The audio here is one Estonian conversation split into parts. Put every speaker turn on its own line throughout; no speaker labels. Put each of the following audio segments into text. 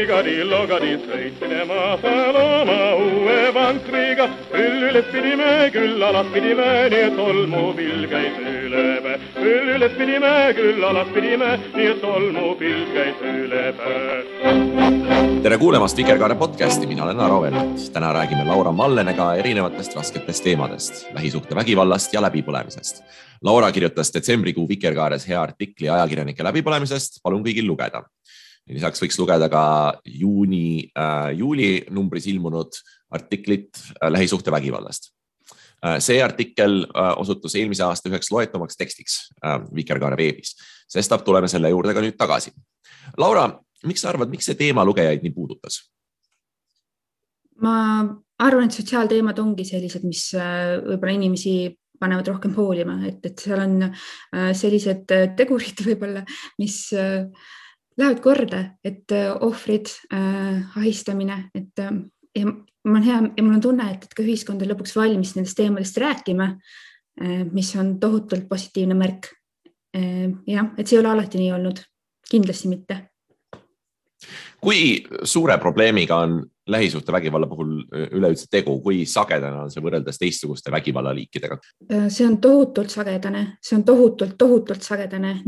logadi, sõitsinema seal oma uue vankriga. Üles pidime, küll alas pidime, nii et tolmupill käis üle päe. Üles pidime, küll alas pidime, nii et tolmupill käis üle päe.
Tere kuulemast Vikerkaare podcasti, mina olen Aro Velmet. Täna räägime Laura Mallenega erinevatest rasketest teemadest, lähisuhte vägivallast ja läbipõlemisest. Laura kirjutas detsembrikuu Vikerkaares hea artikli ajakirjanike läbipõlemisest, palun kõigil lugeda. Lisaks võiks lugeda ka juuli numbris ilmunud artiklit lähisuhte vägivallast. See artikkel osutus eelmise aasta üheks loetumaks tekstiks Vikerkaare veebis. Sestap tuleme selle juurde ka nüüd tagasi. Laura, miks sa arvad, miks see teema lugejaid nii puudutas?
Ma arvan, et sotsiaalteemad ongi sellised, mis võib-olla inimesi panevad rohkem hoolima, et seal on sellised tegurid võib-olla, mis lähevad korda, et ohvrid, ahistamine, et ja mul on hea ja mul on tunne, et ka ühiskond on lõpuks valmis nendest teemadest rääkima, mis on tohutult positiivne märk. Ja, et see ei ole alati nii olnud, kindlasti mitte.
Kui suure probleemiga on lähisuhte vägivalla puhul üleüldse tegu, kui sagedane on see võrreldes teistsuguste vägivallaliikidega?
See on tohutult sagedane,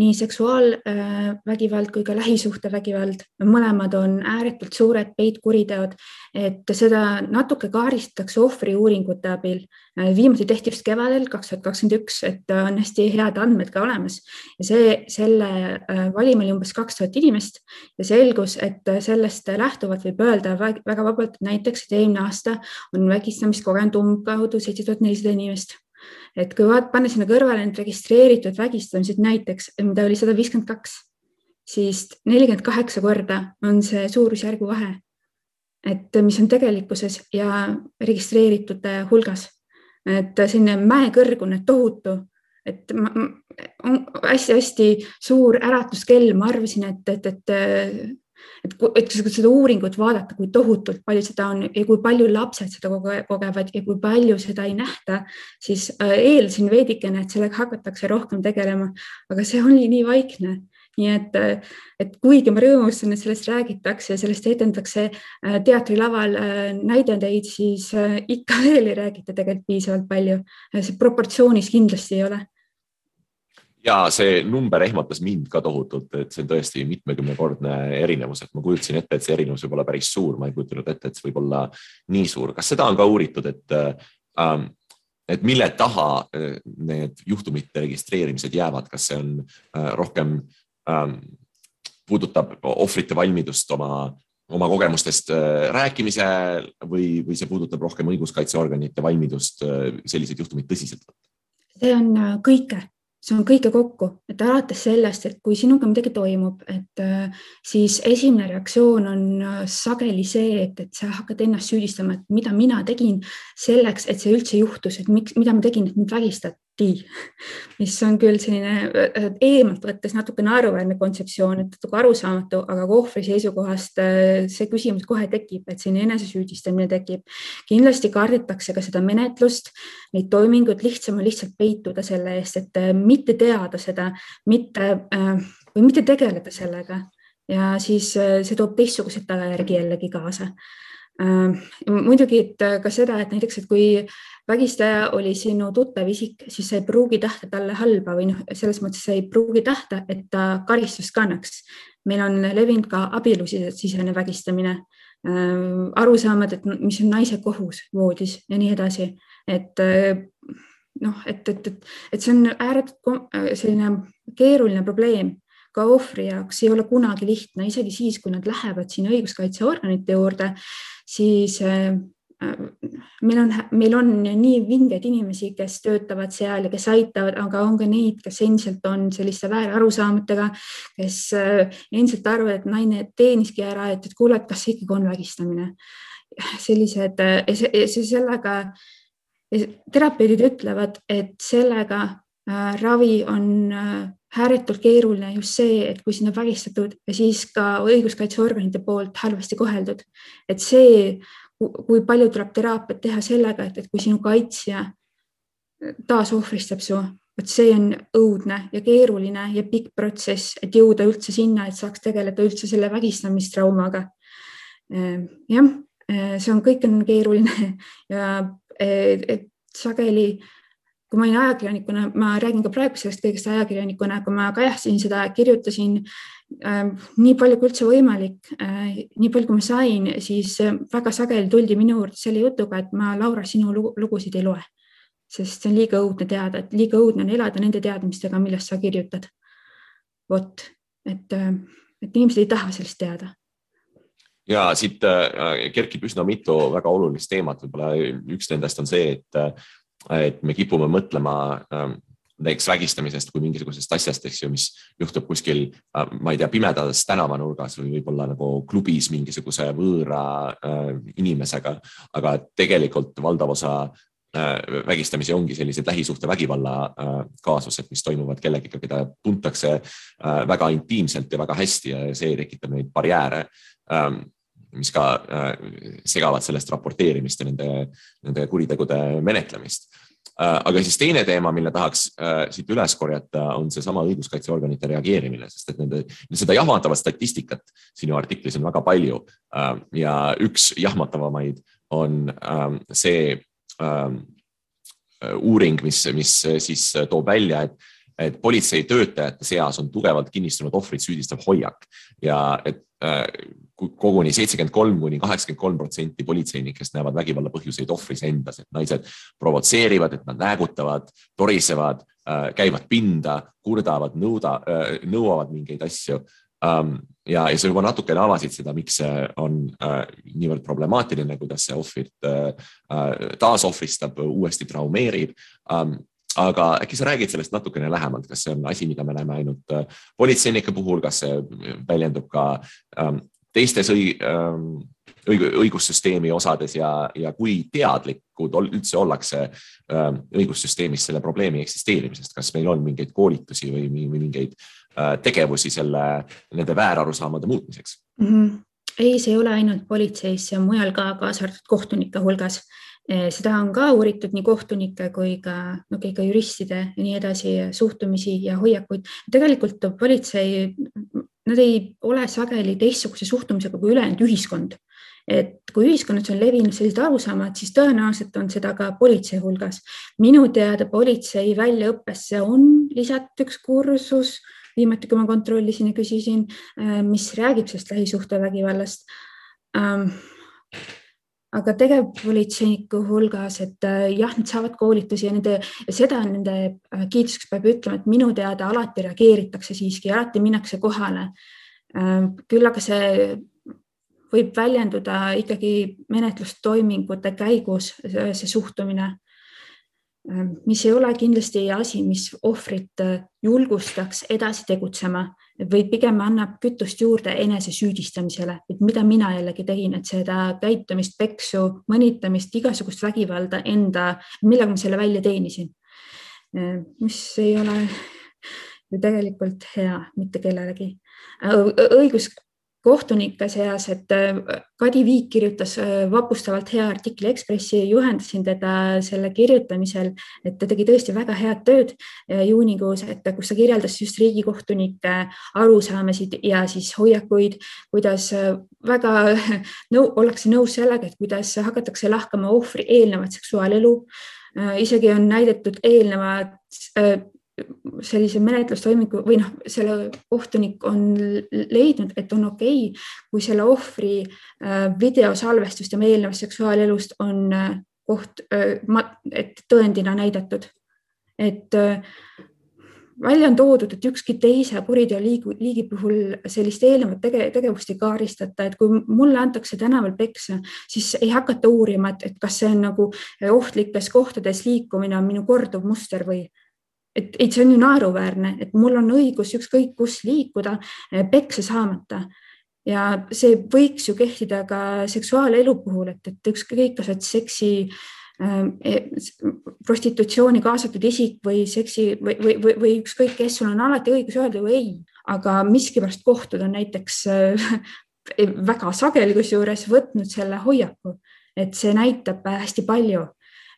nii seksuaalvägivald kui ka lähisuhte vägivald. Mõlemad on ääretult suured peitkuriteod, et seda natuke kaaristatakse ohvri uuringute abil. Viimati tehti just kevadel 2021, et on hästi head andmed ka olemas. Ja selle valima oli umbes 2000 inimest ja selgus, et sellest lähtuvalt võib öelda väga vabalt, näiteks, et eelmine aasta on vägistamist kogenud umbkaudu 7400 inimest. Et kui panna sinna kõrvale need registreeritud vägistamised näiteks, mida oli 152, siis 48 korda on see suurusjärgu vahe, et mis on tegelikkuses ja registreeritute hulgas. Et selline mäekõrgune tohutu, et on hästi suur äratuskell, ma arvasin, et kui seda uuringut vaadata, kui tohutult palju seda on ja kui palju lapsed seda kogevad ja kui palju seda ei nähta, siis eeldasin veidikene, et sellega hakatakse rohkem tegelema, aga see oli nii vaikne. Nii et kuigi ma rõõmustan, et sellest räägitakse ja sellest etendatakse teatrilaval näidendeid, siis ikka veel ei räägita tegelikult piisavalt palju. See proportsioonis kindlasti ei ole.
Ja see number ehmatas mind ka tohutult, et see on tõesti mitmekümnekordne erinevus, et ma kujutasin ette, et see erinevus võib olla päris suur, ma ei kujutanud ette, et see võib olla nii suur. Kas seda on ka uuritud, et mille taha need juhtumite registreerimised jäävad, kas see on rohkem puudutab ohvrite valmidust oma kogemustest rääkimise või see puudutab rohkem õiguskaitseorganite valmidust sellised juhtumid tõsiselt võtta?
See on kõike. See on kõike kokku, et alates sellest, et kui sinuga midagi toimub, et siis esimene reaktsioon on sageli see, et sa hakkad ennast süüdistama, et mida mina tegin selleks, et see üldse juhtus, et mida ma tegin, et mind vägistati, mis on küll selline eemalt võttes natuke naeruväärne kontseptsioon, et natuke arusaamatu, aga ohvri seisukohast see küsimus kohe tekib, et selline enesesüüdistamine tekib. Kindlasti kardetakse ka seda menetlust, neid toiminguid lihtsam on lihtsalt peituda selle eest, et mitte teada seda, või mitte tegeleda sellega ja siis see toob teistsugused tagajärgi jällegi kaasa. Muidugi ka seda, et näiteks, et kui vägistaja oli sinu tuttav isik, siis sa ei pruugi tahta talle halba või selles mõttes sa ei pruugi tahta, et ta karistust kannaks. Meil on levinud ka abielusisene vägistamine, arusaamad, et mis on naise kohus voodis ja nii edasi. Et see on ääretult selline keeruline probleem. Ka ohvri jaoks ei ole kunagi lihtne, isegi siis, kui nad lähevad siin õiguskaitseorganite juurde, siis meil on nii vingeid inimesi, kes töötavad seal ja kes aitavad, aga on ka neid, kes endiselt on selliste väärarusaamatega, kes endiselt arvavad, et naine teeniski ära, et kuule, kas see ikkagi on vägistamine. Sellised, sellega terapeudid ütlevad, et sellega ravi on ääretult keeruline just see, et kui sinna vägistatud ja siis ka õiguskaitseorganite poolt halvasti koheldud. Et see, kui palju tuleb teraapiat teha sellega, et kui sinu kaitsja taas ohvristab su, et see on õudne ja keeruline ja pikk protsess, et jõuda üldse sinna, et saaks tegeleda üldse selle vägistamistraumaga. jah, see kõik on keeruline ja sageli, kui ma olin ajakirjanikuna, ma räägin ka praegu sellest kõigest ajakirjanikuna, kui ma kajastasin seda, kirjutasin nii palju kui üldse võimalik, nii palju kui ma sain, siis väga sageli tuldi minu juurde selle jutuga, et ma, Laura, sinu lugusid ei loe, sest see on liiga õudne teada, et liiga õudne on elada nende teadmistega, millest sa kirjutad. Vot, et inimesed ei taha sellest teada.
Ja siit kerkib üsna mitu väga olulist teemat. Võib-olla üks nendest on see, et me kipume mõtlema näiteks vägistamisest kui mingisugusest asjast, eks ju, mis juhtub kuskil, ma ei tea, pimedas tänavanurgas või võib-olla nagu klubis mingisuguse võõra inimesega, aga tegelikult valdav osa vägistamisi ongi sellised lähisuhte vägivalla kaasused, mis toimuvad kellegiga, keda tuntakse väga intiimselt ja väga hästi ja see tekitab neid barjääre, mis ka segavad sellest raporteerimist ja nende kuritegude menetlemist. Aga siis teine teema, mille tahaks siit üles korjata, on see sama õiguskaitseorganite reageerimine, sest et seda jahmatavat statistikat sinu artiklis on väga palju ja üks jahmatavamaid on see uuring, mis siis toob välja, et politsei töötajate seas on tugevalt kinnistunud ohvrid süüdistav hoiak ja et koguni 73–83% politseinikest näevad vägivalla põhjuseid ohvris endas, et naised provotseerivad, et nad näägutavad, torisevad, käivad pinda, kurdavad, nõuavad mingeid asju. Ja sa juba natukene avasid seda, miks see on niivõrd problemaatiline, kuidas see ohvrit taasohvristab, uuesti traumeerib. Aga äkki sa räägid sellest natukene lähemalt, kas see on asi, mida me näeme ainult politseinike puhul, kas see väljendub ka teistes õigussüsteemi osades ja kui teadlikud üldse ollakse õigussüsteemis selle probleemi eksisteerimisest, kas meil on mingeid koolitusi või mingeid tegevusi nende väärarusaamade muutmiseks?
Ei, see ei ole ainult politseis, see on mujal ka kaasartud kohtunike hulgas. Seda on ka uuritud nii kohtunike kui ka juristide ja nii edasi suhtumisi ja hoiakuid. Tegelikult politsei, nad ei ole sageli teistsuguse suhtumisega kui ülejäänud ühiskond. Et kui ühiskonnas on levinud sellised arusaamad, siis tõenäoliselt on seda ka politsei hulgas. Minu teada politsei väljaõppesse on lisatud üks kursus, viimati kui ma kontrollisin ja küsisin, mis räägib sellest lähisuhtevägivallast. Aga tegevpolitseiniku hulgas, et jah, nad saavad koolitusi ja seda nende kiituseks peab ütlema, et minu teada alati reageeritakse siiski, alati minnakse kohale. Küll aga see võib väljenduda ikkagi menetlustoimingute käigus, see suhtumine, mis ei ole kindlasti asi, mis ohvrit julgustaks edasi tegutsema või pigem annab kütust juurde enese süüdistamisele, et mida mina jällegi tegin, et seda käitumist, peksu, mõnitamist, igasugust vägivalda millega ma selle välja teenisin, mis ei ole ju tegelikult hea mitte kellelegi. Kohtunike seas, et Kadi Viik kirjutas vapustavalt hea artikli Ekspressi, juhendasin teda selle kirjutamisel, et ta tegi tõesti väga head tööd juunikuus, et kus ta kirjeldas just riigikohtunike arusaamasid ja siis hoiakuid, kuidas väga ollakse nõus sellega, et kuidas hakatakse lahkama ohvri eelnevat seksuaalelu. Isegi on näidatud eelnevad sellise menetlustoimingu või selle kohtunik on leidnud, et on okei, kui selle ohvri videosalvestust ja eelnevast seksuaalelust on et tõendina näidatud. Et välja on toodud, et ükski teise kuriteoliigi puhul sellist eelnevat tegevust ei kaaristata, et kui mulle antakse tänaval peksa, siis ei hakata uurima, et kas see on nagu ohtlikes kohtades liikumine on minu korduv muster või et see on ju naeruväärne, et mul on õigus ükskõik kus liikuda peksa saamata ja see võiks ju kehtida ka seksuaalelu puhul, et ükskõik kas seksi prostitutsiooni kaasatud isik või seksi või ükskõik kes, sul on alati õigus öelda ju ei, aga miskipärast kohtud on näiteks väga sageli kusjuures võtnud selle hoiaku, et see näitab hästi palju.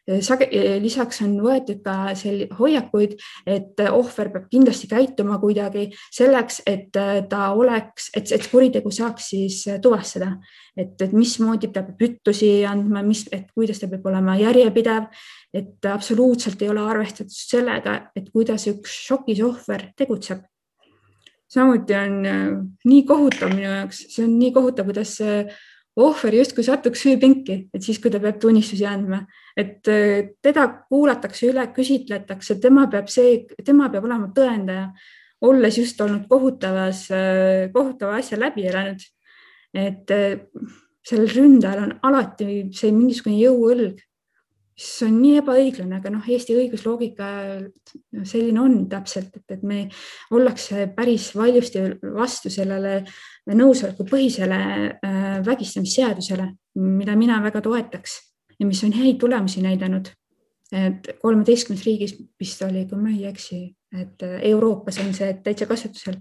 Lisaks on võetud ka hoiakuid, et ohver peab kindlasti käituma kuidagi selleks, et et kuritegu saaks siis tuvastada, et mismoodi ta peab ütlusi andma, et kuidas ta peab olema järjepidev, et absoluutselt ei ole arvestatud sellega, et kuidas üks šokis ohver tegutseb. Samuti on nii kohutav minu jaoks, see on nii kohutav, kuidas ohver justkui satuks süüpinki, et siis, kui ta peab tunnistusi andma, et teda kuulatakse üle, küsitletakse, tema peab olema tõendaja, olles just olnud kohutava asja läbi elanud. Et sellel ründajal on alati see mingisugune jõuõlg, mis on nii ebaõiglane, aga Eesti õigusloogika selline on täpselt, et me ollakse päris valjusti vastu sellele nõusoleku põhisele vägistamisseadusele, mida mina väga toetaks ja mis on häid tulemusi näidanud. Et 13 riigis vist oli, kui ma ei eksi, et Euroopas on see täitsa kasutusel.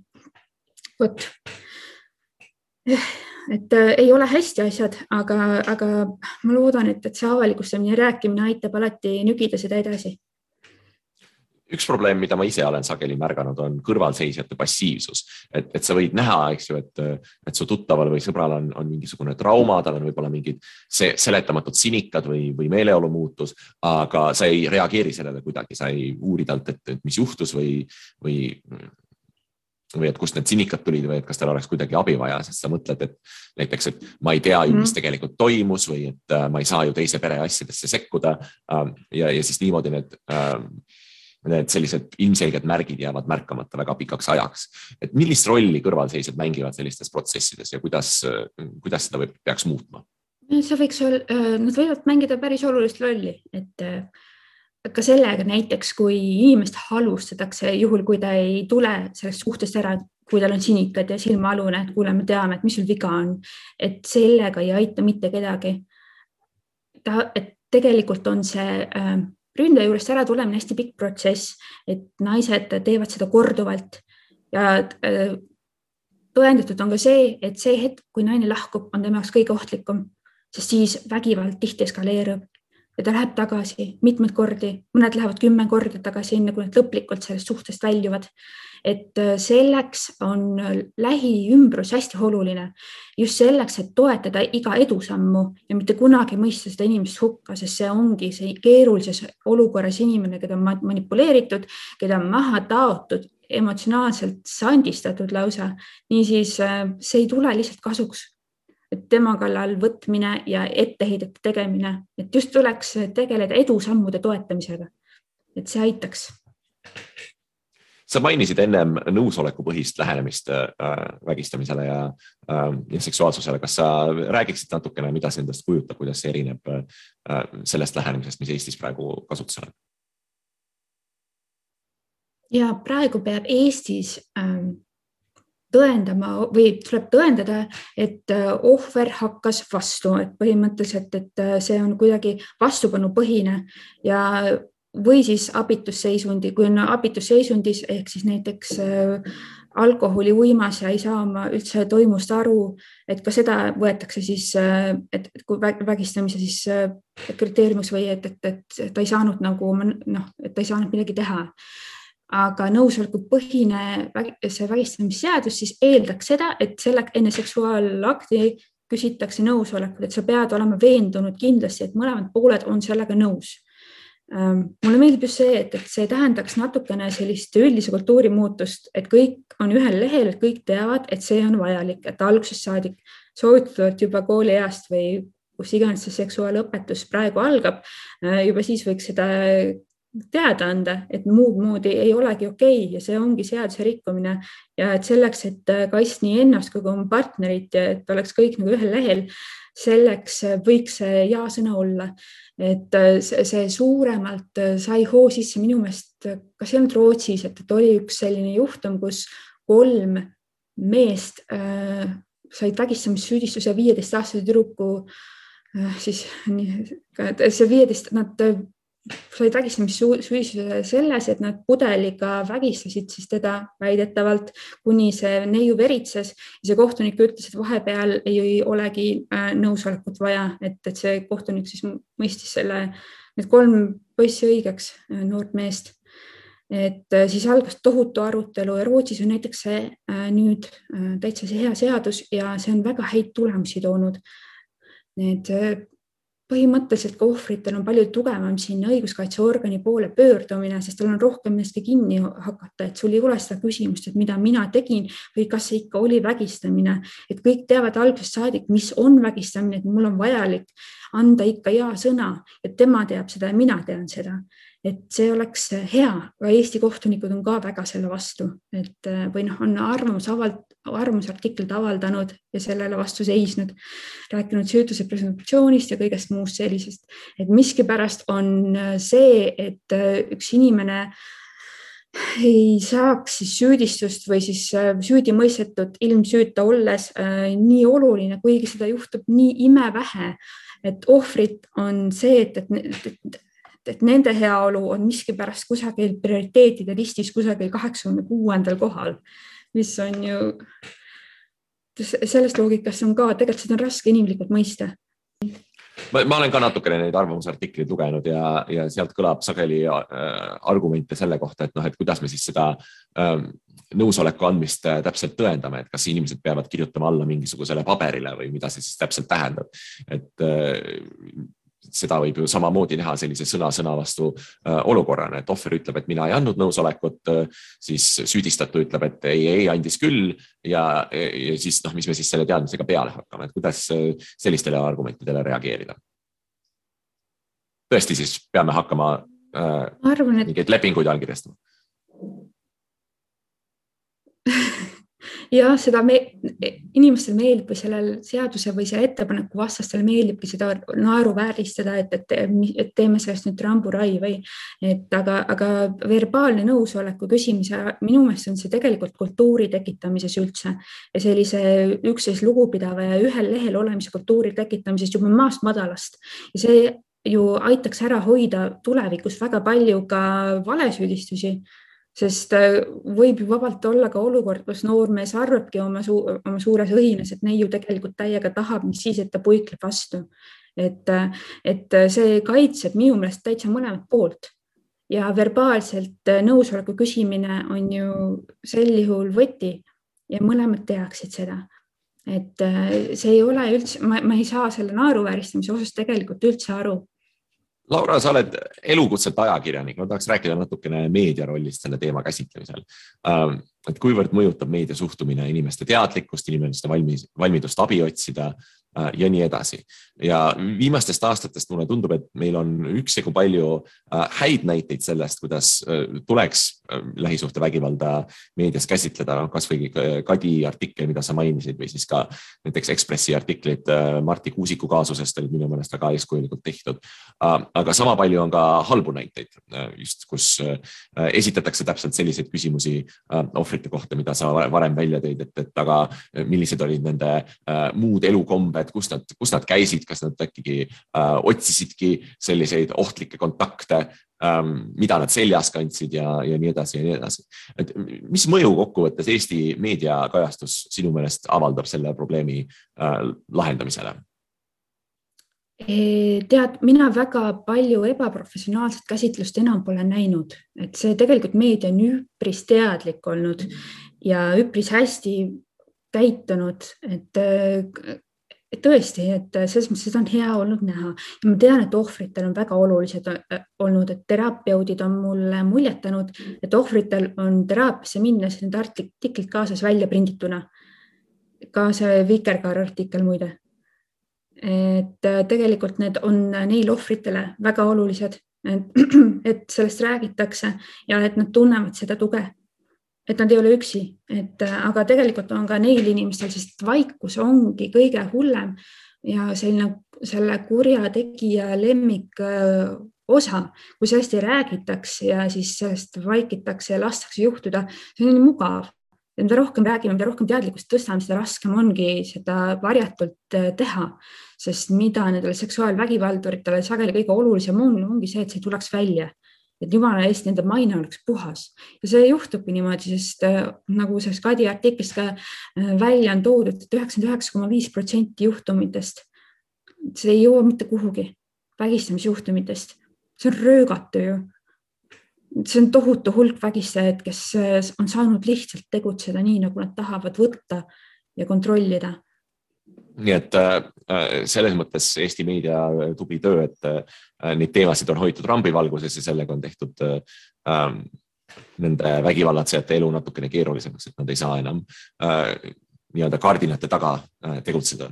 Et ei ole hästi asjad, aga ma loodan, et see avalikustamine ja rääkimine aitab alati nügida seda edasi.
Üks probleem, mida ma ise olen sageli märganud, on kõrvalseisjate passiivsus. Et sa võid näha, eks ju, et su tuttaval või sõbral on mingisugune trauma, tal on võib-olla mingid seletamatud sinikad või meeleolu muutus, aga sa ei reageeri sellele kuidagi, sa ei uuri talt, et mis juhtus või et kust need sinikad tulid või et kas tal oleks kuidagi abi vaja, sest sa mõtled, et näiteks, et ma ei tea ju, mis tegelikult toimus või et ma ei saa ju teise pere asjadesse sekkuda ja siis niimoodi need sellised ilmselged märgid jäävad märkamata väga pikaks ajaks. Et millist rolli kõrvalseisjad mängivad sellistes protsessides ja kuidas seda peaks muutma?
Nad võivad mängida päris olulist rolli, et ka sellega näiteks, kui inimest halvustatakse juhul, kui ta ei tule sellest suhtest ära, kui tal on sinikad ja silmaalune, et kuule, me teame, et mis sul viga on, et sellega ei aita mitte kedagi. Et tegelikult on see ründaja juurest ära tulemine hästi pikk protsess, et naised teevad seda korduvalt ja tõendatud on ka see, et see hetk, kui naine lahkub, on tema jaoks kõige ohtlikum, sest siis vägivald tihti eskaleerub ja ta läheb tagasi mitmed kordi, mõned lähevad 10 korda tagasi enne, kui nad lõplikult sellest suhtest väljuvad. Et selleks on lähiümbrus hästi oluline, just selleks, et toetada iga edusammu ja mitte kunagi mõista seda inimest hukka, sest see ongi see keerulises olukorras inimene, keda on manipuleeritud, keda on maha taotud, emotsionaalselt sandistatud lausa. Niisiis see ei tule lihtsalt kasuks, et tema kallal võtmine ja etteheidete tegemine, et just tuleks tegeleda edusammude toetamisega, et see aitaks.
Sa mainisid ennem nõusolekupõhist lähenemist vägistamisele ja seksuaalsusele. Kas sa räägiksid natukene, mida see endast kujutab, kuidas see erineb sellest lähenemisest, mis Eestis praegu kasutusel on?
Ja praegu peab Eestis tõendama või tuleb tõendada, et ohver hakkas vastu, et põhimõtteliselt, et see on kuidagi vastupanupõhine ja või siis abitusseisundi, kui on abitusseisundis ehk siis näiteks alkoholi uimas ja ei saa oma üldse toimust aru, et ka seda võetakse siis, et kui vägistamise siis kriteeriumiks või et ta ei saanud et ta ei saanud midagi teha. Aga nõusolekupõhine see vägistamisseadus siis eeldaks seda, et enne seksuaalakti küsitakse nõusolekut, et sa pead olema veendunud kindlasti, et mõlemad pooled on sellega nõus. Mulle meeldib just see, et see tähendaks natukene sellist üldise kultuuri muutust, et kõik on ühel lehel, et kõik teavad, et see on vajalik, et algusest saadik soovitavalt juba koolieast või kus iganes see seksuaalõpetus praegu algab, juba siis võiks seda teada anda, et muud moodi ei olegi okei ja see ongi seaduse rikkumine ja et selleks, et kaitsta nii ennast kui oma partnerit ja et oleks kõik nagu ühel lehel, selleks võiks see ja-sõna olla. Et see suuremalt sai hoo sisse minu meelest, kas ei olnud Rootsis, et oli üks selline juhtum, kus 3 meest said vägistamissüüdistuse 15-aastase tüdruku, siis see 15, nad said vägistamissüüdistuse selles, et nad pudeliga vägistasid siis teda väidetavalt, kuni see neiu veritses ja see kohtunik ütles, et vahepeal ei olegi nõusolekut vaja, et see kohtunik siis mõistis selle need 3 poissi õigeks, noort meest. Et siis algas tohutu arutelu ja Rootsis on näiteks see nüüd täitsa see hea seadus ja see on väga häid tulemusi toonud. Need põhimõtteliselt ka ohvritel on palju tugevam siin õiguskaitseorgani poole pöördumine, sest tal on rohkem millestki kinni hakata, et sul ei ole seda küsimust, et mida mina tegin või kas see ikka oli vägistamine. Et kõik teavad algusest saadik, mis on vägistamine, et mul on vajalik anda ikka hea sõna, et tema teab seda ja mina tean seda. Et see oleks hea, aga Eesti kohtunikud on ka väga selle vastu, et või on arvamusartiklid avaldanud ja sellele vastu seisnud, rääkinud süütuse presumptsioonist ja kõigest muust sellisest. Et miskipärast on see, et üks inimene ei saaks siis süüdistust või siis süüdi mõistetud ilmsüüta olles nii oluline, kuigi seda juhtub nii imevähe, et ohvrid on see, et nende heaolu on miskipärast kusagil prioriteetide listis kusagil 86. kohal, mis on ju, sellest loogikast on ka, tegelikult seda on raske inimlikult mõista.
Ma olen ka natukene neid arvamusartikleid lugenud ja sealt kõlab sageli argumente selle kohta, et kuidas me siis seda nõusoleku andmist täpselt tõendame, et kas inimesed peavad kirjutama alla mingisugusele paberile või mida see siis täpselt tähendab. Et seda võib ju samamoodi näha sellise sõna vastu olukorrana, et ohver ütleb, et mina ei andnud nõusolekut, siis süüdistatu ütleb, et ei andis küll ja siis mis me siis selle teadmisega peale hakkame, et kuidas sellistele argumentidele reageerida. Tõesti siis peame hakkama mingeid lepinguid allkirjastama.
Ja seda inimestel meeldib või sellel seaduse või selle ettepaneku vastastel meeldibki seda naeruvääristada, et teeme sellest nüüd ramburai või aga verbaalne nõusoleku küsimise, minu meelest on see tegelikult kultuuri tekitamises üldse ja sellise üksteist lugupidava ja ühel lehel olemise kultuuri tekitamises juba maast madalast ja see ju aitaks ära hoida tulevikus väga palju ka valesüüdistusi. Sest võib ju vabalt olla ka olukord, kus noormees arvabki oma suures õhines, et neiu tegelikult täiega tahab, mis siis, et ta puikleb vastu. Et see kaitseb minu meelest täitsa mõlemat poolt ja verbaalselt nõusoleku küsimine on ju sel juhul võti ja mõlemad tehaksid seda. Et see ei ole üldse, ma ei saa selle naeruvääristamise osas tegelikult üldse aru.
Laura, sa oled elukutselt ajakirjanik, ma tahaks rääkida natukene meedia rollist selle teema käsitlemisel. Et kuivõrd mõjutab meedia suhtumine inimeste teadlikkust, inimeste valmidust abi otsida ja nii edasi. Ja viimastest aastatest mulle tundub, et meil on üksjagu palju häid näiteid sellest, kuidas tuleks lähisuhtevägivalda meedias käsitleda, kas või Kadi artikkel, mida sa mainisid, või siis ka näiteks Ekspressi artiklid Marti Kuusiku kaasusest olid minu meelest väga eeskujulikult tehtud. Aga sama palju on ka halbu näiteid, just kus esitatakse täpselt selliseid küsimusi ohvrite kohta, mida sa varem välja tõid, et aga millised olid nende muud elukombed, kus nad käisid, kas nad äkki otsisidki selliseid ohtlikke kontakte, mida nad seljas kandsid ja nii edasi ja nii edasi. Et mis mõju kokkuvõttes Eesti meediakajastus sinu meelest avaldab selle probleemi lahendamisele?
Tead, mina väga palju ebaprofessionaalset käsitlust enam pole näinud, et see tegelikult meedia on üpris teadlik olnud ja üpris hästi käitunud, et tõesti, et selles mõttes seda on hea olnud näha ja ma tean, et ohvritel on väga olulised olnud, et terapeudid on mulle muljetanud, et ohvritel on teraapiasse minnes need artiklid kaasas välja prindituna, ka see Vikerkaar artikkel muide. Et tegelikult need on neil ohvritele väga olulised, et sellest räägitakse ja et nad tunnevad seda tuge, et nad ei ole üksi, aga tegelikult on ka neil inimestel, sest vaikus ongi kõige hullem ja selle kurja tegija lemmik osa, kui sellest ei räägitaks ja siis sellest vaikitakse ja lastakse juhtuda, see on nii mugav. Ja mida rohkem räägime, mida rohkem teadlikkust tõstame, seda raskem ongi seda varjatult teha, sest mida nendele seksuaalvägivalduritele sageli kõige olulisem ongi see, et see tuleks välja, et jumala eest nende maine oleks puhas. Ja see juhtubki niimoodi, sest nagu sellest Kadi artiklist ka välja on toodud, et 99,5% juhtumitest, see ei jõua mitte kuhugi vägistamisjuhtumitest. see on röögatu ju. See on tohutu hulk vägistajaid, kes on saanud lihtsalt tegutseda nii, nagu nad tahavad võtta ja kontrollida.
Nii et selles mõttes Eesti meedia tubli töö, et neid teemasid on hoitud rambivalguses ja sellega on tehtud nende vägivallatsejate elu natukene keerulisemaks, et nad ei saa enam nii-öelda kardinate taga tegutseda.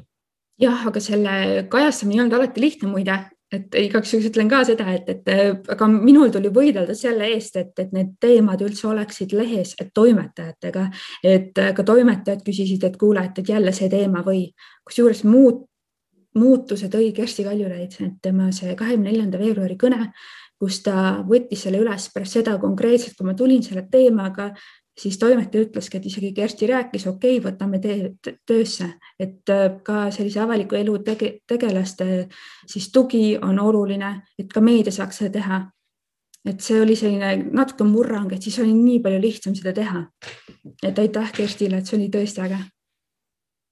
Jah, aga selle kajastamine ei olnud alati lihtne muide, et igaks juhuks ütlen ka seda, et aga minul tuli võidelda selle eest, et need teemad üldse oleksid lehes, et toimetajatega, et ka toimetajad küsisid, et kuule, et jälle see teema või kusjuures muutuse tõi Kersti Kaljulaid, et tema see 24. veebruari kõne, kus ta võttis selle üles pärast seda konkreetselt, kui ma tulin selle teemaga, siis toimetaja ütleski, et isegi Kersti rääkis, okei, võtame töösse, et ka sellise avaliku elu tegelaste siis tugi on oluline, et ka meedia saaks seda teha. Et see oli selline natuke murrang, et siis oli nii palju lihtsam seda teha. Et aitäh Kerstile, et see oli tõesti äge.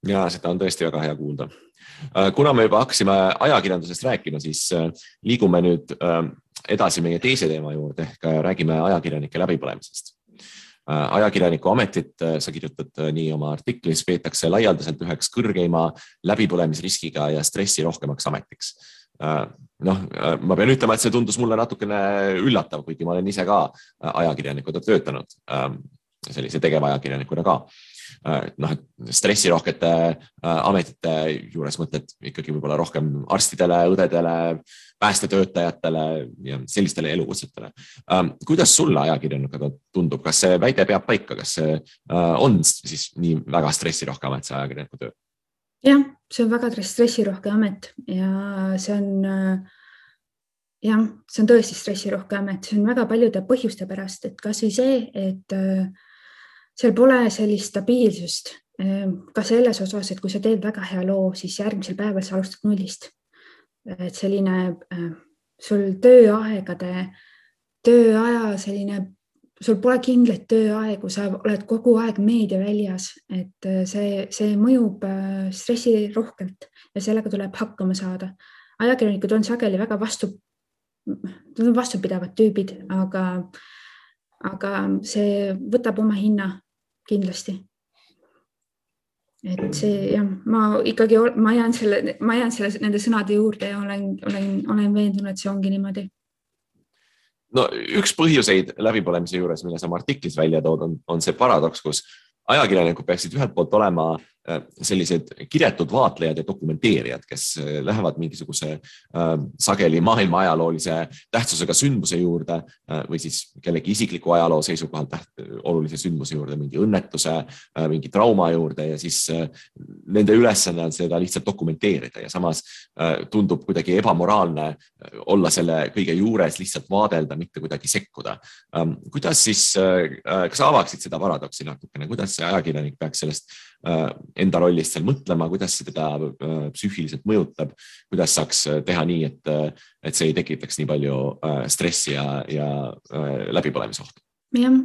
Ja seda on tõesti väga hea kuulda. Kuna me juba hakkasime ajakirjandusest rääkima, siis liigume nüüd edasi meie teise teema juurde, ehk räägime ajakirjanike läbipõlemisest. Ajakirjaniku ametit, sa kirjutad nii oma artiklis, peetakse laialdaselt üheks kõrgeima läbipõlemisriskiga ja stressi rohkemaks ametiks. Ma pean ütlema, et see tundus mulle natukene üllatav, kuigi ma olen ise ka ajakirjanikuna töötanud, sellise tegevajakirjanikuna ka. Stressirohkete ametite juures mõtled ikkagi võib-olla rohkem arstidele, õdedele, päästetöötajatele ja sellistele elukutsetele. Kuidas sulle ajakirjanikuna tundub, kas see väide peab paika, kas see on siis nii väga stressirohke amet, see ajakirjaniku töö?
Jah, see on väga stressirohke amet ja see on tõesti stressirohke amet, see on väga paljude põhjuste pärast, et kas või see, et seal pole sellist stabiilsust ka selles osas, et kui sa teed väga hea loo, siis järgmisel päeval sa alustad nullist. Et selline sul sul pole kindlaid tööaegu, sa oled kogu aeg meedia väljas, et see mõjub stressi rohkelt ja sellega tuleb hakkama saada. Ajakirjanikud on sageli väga vastupidavad tüübid, aga see võtab oma hinna kindlasti. Et see, jah, ma jään nende sõnade juurde ja olen veendunud, et see ongi niimoodi.
No, üks põhjuseid läbipõlemise juures, mille sa artiklis välja tood, on see paradoks, kus ajakirjanikud peaksid ühelt poolt olema sellised kiretud vaatlejad ja dokumenteerijad, kes lähevad mingisuguse sageli maailma ajaloolise tähtsusega sündmuse juurde või siis kellegi isikliku ajaloo seisukohalt olulise sündmuse juurde, mingi õnnetuse, mingi trauma juurde ja siis nende ülesanne on seda lihtsalt dokumenteerida ja samas tundub kuidagi ebamoraalne olla selle kõige juures lihtsalt vaadelda, mitte kuidagi sekkuda. Kuidas siis, kas avaksid seda paradoksi natukene, kuidas see ajakirjanik peaks sellest enda rollist seal mõtlema, kuidas see teda psüühiliselt mõjutab, kuidas saaks teha nii, et see ei tekitaks nii palju stressi ja läbipõlemisohtu?
Jah,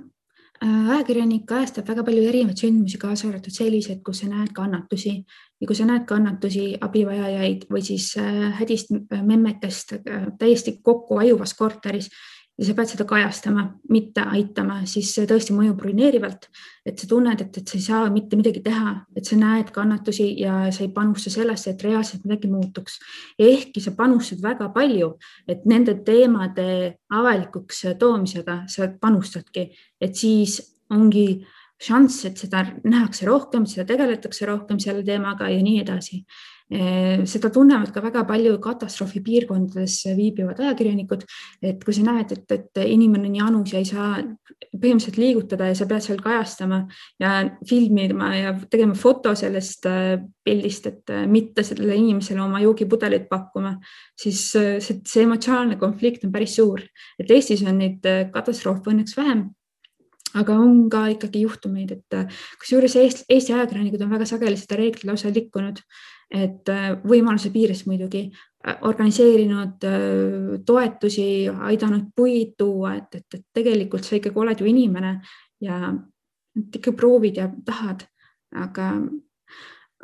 ajakirjanik kajastab väga palju erinevaid sündmusi, kaasa arvatud sellised, kus sa näed kannatusi ja kui sa näed kannatusi, abivajajaid või siis hädist memmetest täiesti kokku ajuvas korteris ja sa pead seda kajastama, mitte aitama, siis see tõesti mõjub ruineerivalt, et sa tunned, et sa ei saa mitte midagi teha, et sa näed kannatusi ja sa ei panusta sellesse, et reaalselt midagi muutuks. Ehkki sa panustad väga palju, et nende teemade avalikuks toomisega sa panustadki, et siis ongi šanss, et seda nähakse rohkem, seda tegeletakse rohkem selle teemaga ja nii edasi. Seda tunnevad ka väga palju katastroofi piirkondades viibivad ajakirjanikud, et kui sa näed, et inimene on janus ja ei saa põhimõtteliselt liigutada ja sa pead seal kajastama ja filmima ja tegema foto sellest pildist, et mitte sellele inimesele oma joogipudelit pakkuma, siis see emotsionaalne konflikt on päris suur. Et Eestis on neid katastroofe õnneks vähem, aga on ka ikkagi juhtumeid, et kusjuures Eesti ajakirjanikud on väga sageli seda reeglit lausa likkunud, et võimaluse piires muidugi organiseerinud toetusi, aidanud puid tuua, et tegelikult sa ikkagi oled ju inimene ja ikka proovid ja tahad,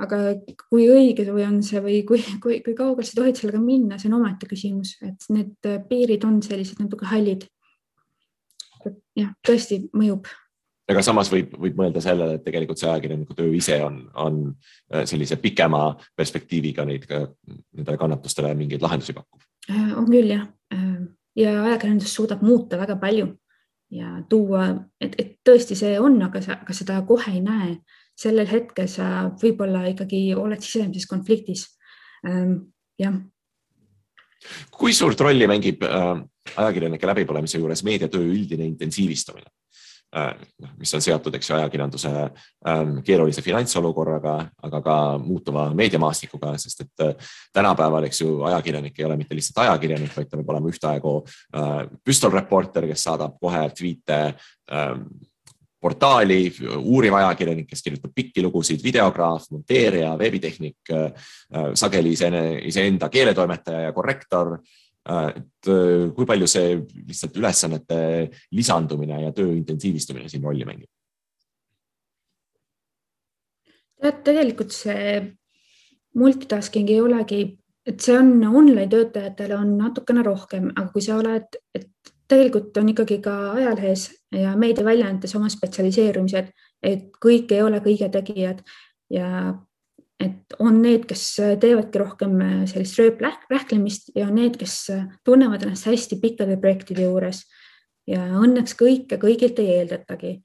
aga kui õige või on see või kui kaugel sa tohid sellega minna, see on omaette küsimus, et need piirid on sellised natuke hallid. Jah, tõesti mõjub.
Aga samas võib mõelda sellele, et tegelikult see ajakirjaniku töö ise on sellise pikema perspektiiviga nendele kannatustele mingeid lahendusi pakkuv.
On küll, jah. Ja ajakirjandus suudab muuta väga palju ja tuua, et tõesti see on, aga seda kohe ei näe. Sellel hetkel sa võib-olla ikkagi oled sisemises konfliktis. Jah.
Kui suurt rolli mängib ajakirjanike läbipõlemise juures meediatöö üldine intensiivistumine, mis on seotud ajakirjanduse keerulise finantsolukorraga, aga ka muutuva meediamaastikuga, sest et tänapäeval ajakirjanik ei ole mitte lihtsalt ajakirjanik, vaid ta võib olema ühtaegu püstolreporter, kes saadab kohe tweete portaali, uuriv ajakirjanik, kes kirjutab pikki lugusid, videograaf, monteerija, veebitehnik, sageli iseenda keeletoimetaja ja korrektor. Et kui palju see lihtsalt ülesannete lisandumine ja töö intensiivistumine siin rolli mängib?
Tegelikult see multitasking ei olegi, et see on online töötajatele on natukene rohkem, aga kui sa oled, et tegelikult on ikkagi ka ajalehes ja meediaväljaandes oma spetsialiseerumised, et kõik ei ole kõige tegijad ja et on need, kes teevadki rohkem sellist rööprähklemist ja on need, kes tunnevad ennast hästi pikkade projektide juures ja õnneks kõigilt ei eeldatagi.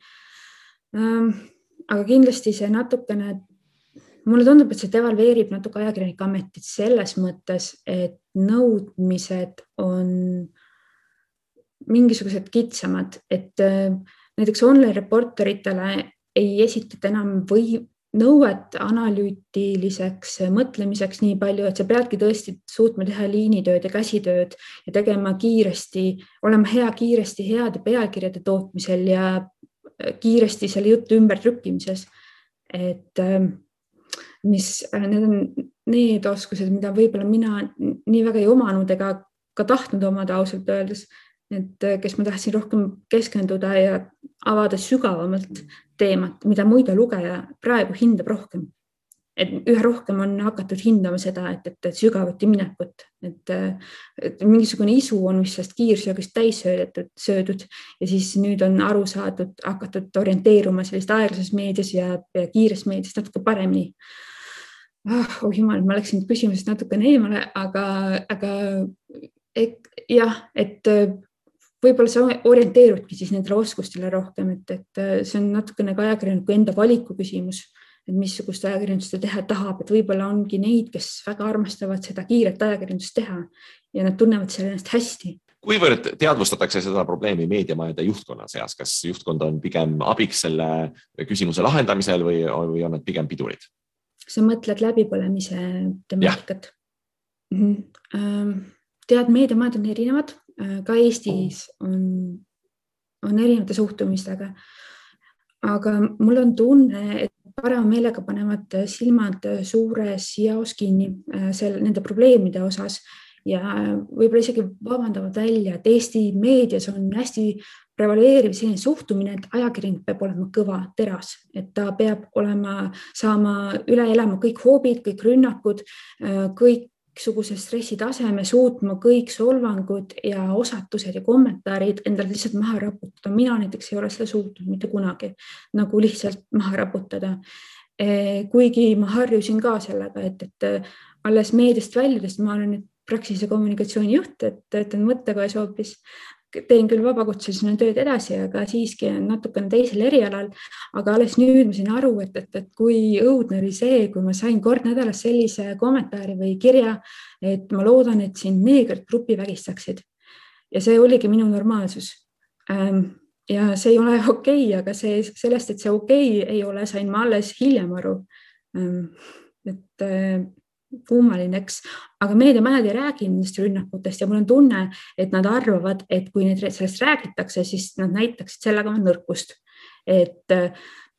Aga kindlasti see natukene, mulle tundub, et see devalveerib natuke ajakirjanike ametit selles mõttes, et nõudmised on mingisugused kitsamad, et näiteks online reporteritele ei esitata enam nõuet analüütiliseks mõtlemiseks nii palju, et sa peadki tõesti suutma teha liinitööd ja käsitööd ja tegema kiiresti, olema hea kiiresti heade pealkirjade tootmisel ja kiiresti selle jutu ümbertrükkimises. Et need on need oskused, mida võib-olla mina nii väga ei omanud ega ka tahtnud omada ausalt öeldes, et kes ma tahtsin rohkem keskenduda ja avada sügavamalt teemat, mida muide lugeja praegu hindab rohkem. Et üha rohkem on hakatud hindama seda, et sügavuti minekut, et mingisugune isu on vist sellest kiirsöögist täis söödud ja siis nüüd on aru saadud, hakatud orienteeruma sellist aeglases meedias ja kiires meedias natuke paremini. Oh jumal, ma läksin küsimusest natukene eemale, aga jah, et võib-olla sa orienteerudki siis nendele oskustele rohkem, et see on natukene ka ajakirjaniku enda valiku küsimus, et missugust ajakirjandust ta teha tahab, et võib-olla ongi neid, kes väga armastavad seda kiiret ajakirjandust teha ja nad tunnevad selle ennast hästi.
Kuivõrd teadvustatakse seda probleemi meediamajade juhtkonna seas? Kas juhtkond on pigem abiks selle küsimuse lahendamisel või on nad pigem pidurid?
Sa mõtled läbipõlemise temaatikat? Tead, meediamajad on erinevad. Ka Eestis on erinevate suhtumistega, aga mul on tunne, et parema meelega panevad silmad suures jaos kinni nende probleemide osas ja võib-olla isegi vabandavad välja, et Eesti meedias on hästi prevaleeriv selline suhtumine, et ajakirjanik peab olema kõva teras, et ta peab saama üle elama kõik hoobid, kõik rünnakud, kõiksuguse stressitaseme, suutma kõik solvangud ja osatused ja kommentaarid endale lihtsalt maha raputada. Mina näiteks ei ole seda suutnud mitte kunagi nagu lihtsalt maha raputada. Kuigi ma harjusin ka sellega, et alles meediast väljudest ma olen nüüd Praxise kommunikatsiooni juht, et töötan mõttekojas hoopis. Teen küll vabakutselisena tööd edasi, aga siiski on natukene teisel erialal. Aga alles nüüd ma sain aru, et kui õudne oli see, kui ma sain kord nädalas sellise kommentaari või kirja, et ma loodan, et siin neegrid grupi vägistaksid. Ja see oligi minu normaalsus. Ja see ei ole okei, aga sellest, et see okei ei ole, sain ma alles hiljem aru. Et kummalineks, aga meediamajad ei räägi nendest rünnakutest ja mul on tunne, et nad arvavad, et kui need sellest räägitakse, siis nad näitaksid sellega nõrkust. Et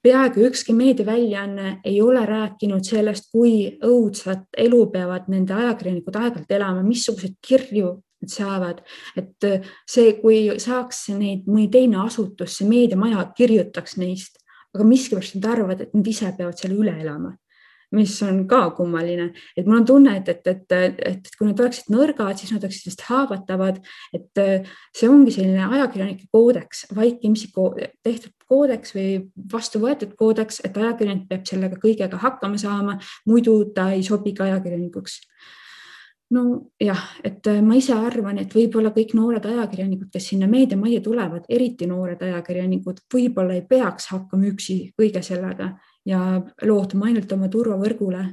peaaegu ükski meediaväljaanne ei ole rääkinud sellest, kui õudsat elu peavad nende ajakirjanikud aeg-ajalt elama, missugused kirju nad saavad. Et see, kui saaks neid mõni teine asutus, see meediamaja kirjutaks neist, aga miskipärast nad arvavad, et nad ise peavad selle üle elama. mis on ka kummaline, et mul on tunne, et kui nad oleksid nõrgad, siis nad oleksid just haavatavad, et see ongi selline ajakirjanike koodeks, vaikimisi tehtud koodeks või vastu võetud koodeks, et ajakirjanik peab sellega kõigega hakkama saama, muidu ta ei sobi ka ajakirjanikuks. No jah, et ma ise arvan, et võib-olla kõik noored ajakirjanikud, kes sinna meediamajja tulevad, eriti noored ajakirjanikud, võib-olla ei peaks hakkama üksi kõige sellega ja lootuma ainult oma turvavõrgule,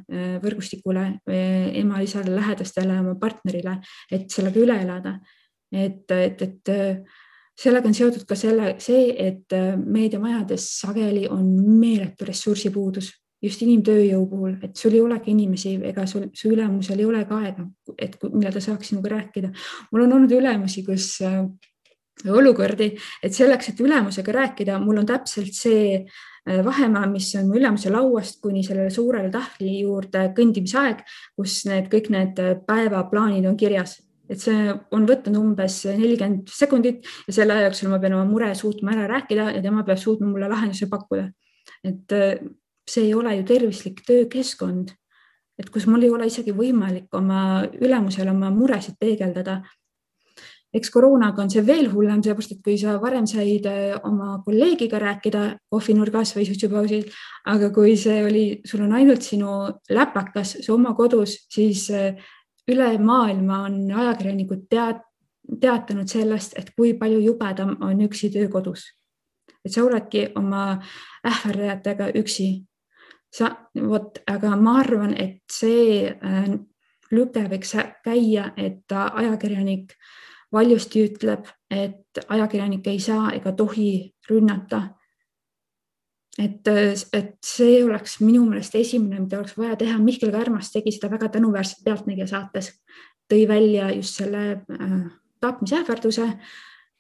võrgustikule, ema-isale, lähedastele, oma partnerile, et sellega üle elada. Et sellega on seotud ka see, et meediamajades sageli on meeletu ressursipuudus, just inimtööjõu puhul, et sul ei olegi inimesi ega su ülemusel ei ole ka aega, et millal ta saaks sinuga rääkida. Mul on olnud ülemusi, kus olukordi, et selleks, et ülemusega rääkida, mul on täpselt see vahemaa, mis on ülemuse lauast kuni sellele suurele tahvli juurde kõndimisaeg, kus kõik need päevaplaanid on kirjas. Et see on võtnud umbes 40 sekundit ja selle aja jooksul ma pean oma mure suutma ära rääkida ja tema peab suutma mulle lahenduse pakkuda. Et see ei ole ju tervislik töökeskkond, et kus mul ei ole isegi võimalik oma ülemusel oma muresid peegeldada. Eks koroonaga on see veel hullem, seepärast, et kui sa varem said oma kolleegiga rääkida kohvinurgas või suitsupausil, aga kui sul on ainult sinu läpakas, su oma kodus, siis üle maailma on ajakirjanikud teatanud sellest, et kui palju jubedam on üksi töö kodus. Et sa oledki oma ähvardajatega üksi. Aga ma arvan, et see lüke võiks käia, et ajakirjanik valjusti ütleb, et ajakirjanik ei saa ega tohi rünnata. Et see oleks minu meelest esimene, mida oleks vaja teha. Mihkel Kärmas tegi seda väga tänuväärselt Pealtnägija saates. Tõi välja just selle tapmisähvarduse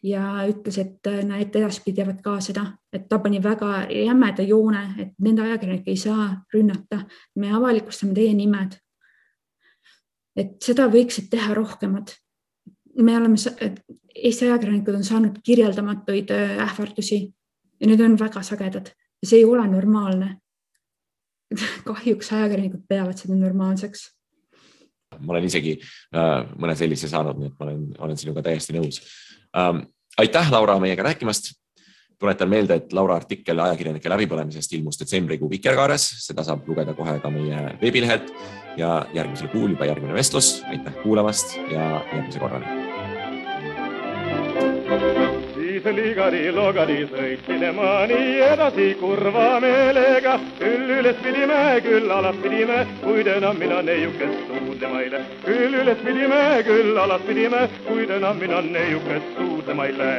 ja ütles, et need edaspidi jäävad ka seda, et ta pani väga jämeda joone, et nende ajakirjanik ei saa rünnata. Me avalikustame teie nimed. Et seda võiksid teha rohkemad. Eesti ajakirjanikud on saanud kirjeldamatuid ähvardusi ja need on väga sagedad ja see ei ole normaalne. Kahjuks ajakirjanikud peavad seda normaalseks.
Ma olen isegi mõne sellise saanud, nii et ma olen sinuga täiesti nõus. Aitäh, Laura, meiega rääkimast. Tuletan meelde, et Laura artikkel ajakirjanike läbipõlemisest ilmus detsembrikuu Vikerkaares. Seda saab lugeda kohe ka meie veebilehelt ja järgmisel kuul juba järgmine vestlus. Aitäh kuulamast ja järgmise korrani.
Siis ligari-logari sõitsin ma nii edasi kurva meelega. Küll üles pidime, küll alas pidime, kuid enam mina neiukest suudlemaile. Küll üles pidime, küll alas pidime, kuid enam mina neiukest suudlemaile.